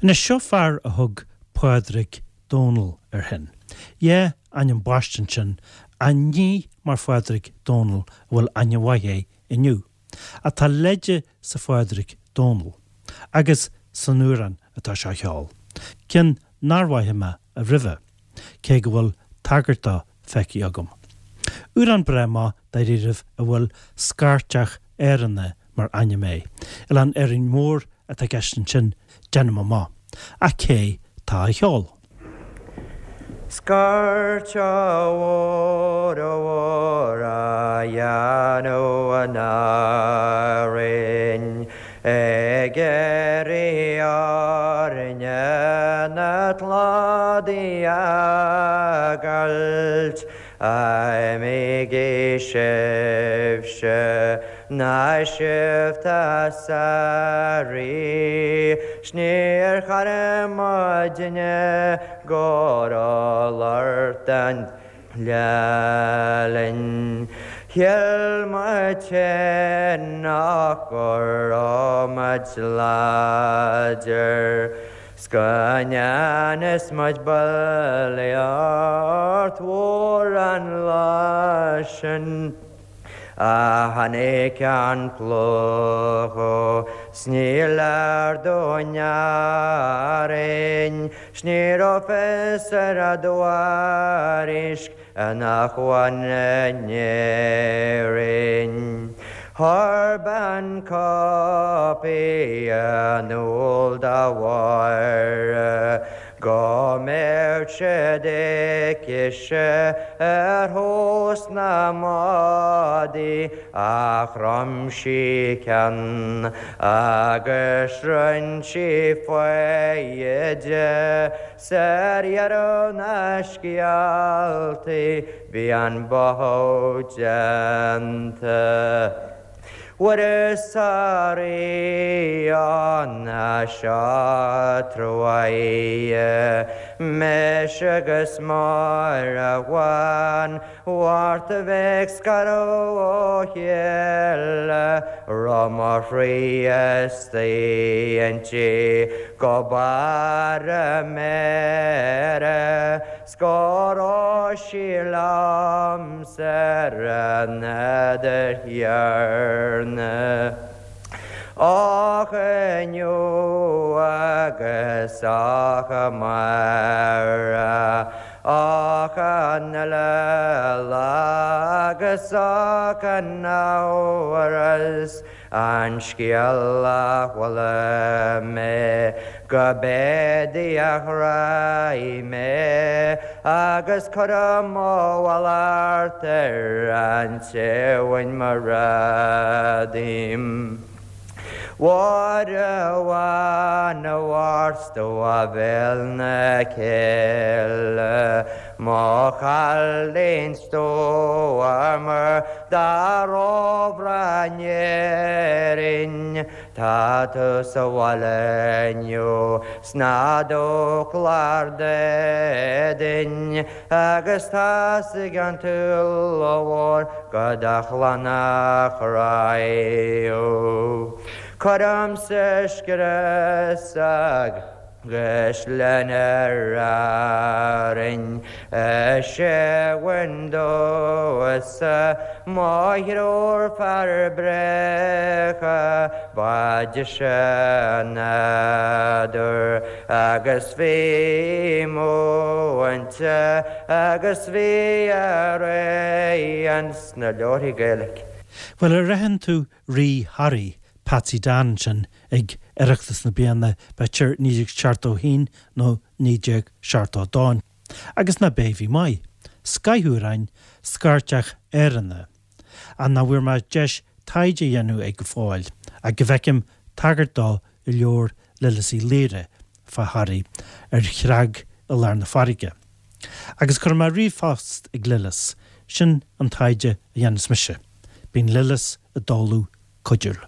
Anois, seo fear a thug Pádraig Dónall air féin. Dhá ainm baiste ansin, ach ní mar Phádraig Dónall a bhfuil aithne mhaith air inniu. Ach tá leide sa Phádraig Dónall, agus san amhrán atá sé a cheol, ceann nár mhothaigh mé roimhe, cé go bhfuil tagairt dó feicthe agam. Amhrán breá maith dáiríribh a bhfuil Scairteach Áranna mar ainm air. Oileán Árainn Mhór atá i gceist ansin, déanaim amach. Ach cé tá á cheol? Scairteach mhór mhór á dhéanamh in Árainn ag iarraidh orainne na cladaigh a fhágáilt. Imígí sibhse ná sibh tá sáraí 's níor chara muidne go raibh lort an lá linn. Shíl muid féin nach go raibh muid láidir. 'S go ndearna muid bulaíocht mhór an lá sin. Ach tháinig an plúchadh 's ní léir dúinn Árainn 's ní raibh fios ar an dtuairisc in acmhainn in Éirinn. Chuir bean cóipí in iúl do Mháire go mbeadh siad aici-se ar thús na mbádaí ach chrom sí ceann agus rinn sí foighid 'S ar dheireadh na scéaltaí bhí an báthadh déanta. Mhuire 's a Ríona seo truaighe mise agus Máire Bhán Mhárta bheith ag scaradh ó chéile raibh mo chroí istigh inti go barr a méire 's go raibh sí liomsa ar an fheadar chéanna. Ach inniu agus ach amárach, ach an uile lá agus ach an amhras an scéal a chuala mé go b'é Dia a ghráigh mé agus cuirim mo mhallacht ar an té a bhain mo ghrá díom. Mháire Bhán a Mhairt do a bhéal na cille, mo chailín stuama dá róbhreá in Éirinn, Tá tú sa bhaile inniu 's ná do chlár d'éadain agus tá's ag an tSúil Mhór go do chlann a chráiú. Cuirimse scrios agus linn ar Árainn is é bhain domhsa mo thriúr fear bréacha ba deise an nádúr agus bhí múinte agus bhí araon sna leabharthaí Gaeilge. Bhuel, ar aithin tú Rí Thoraí, Patsy Dan ansin ag Oireachtas na bliana, b'fhéidir 1971 nó 1972. Agus nach b'é a bhí maith? Scoth amhráin, Scairteach Áranna. Ach nach bhfuair mé deis taighde a dhéanamh air go fóill, ach go bhfeicim tagairt dó i leabhar Lillis Uí Laoire fá Thoraigh, Ar Chreag i Lár na Farraige. Agus cuirfidh mé ríomhphost ag Lillis, sin an taighde a dhéanfas mise. Bíonn Lillis i dtólamh cuidiúil.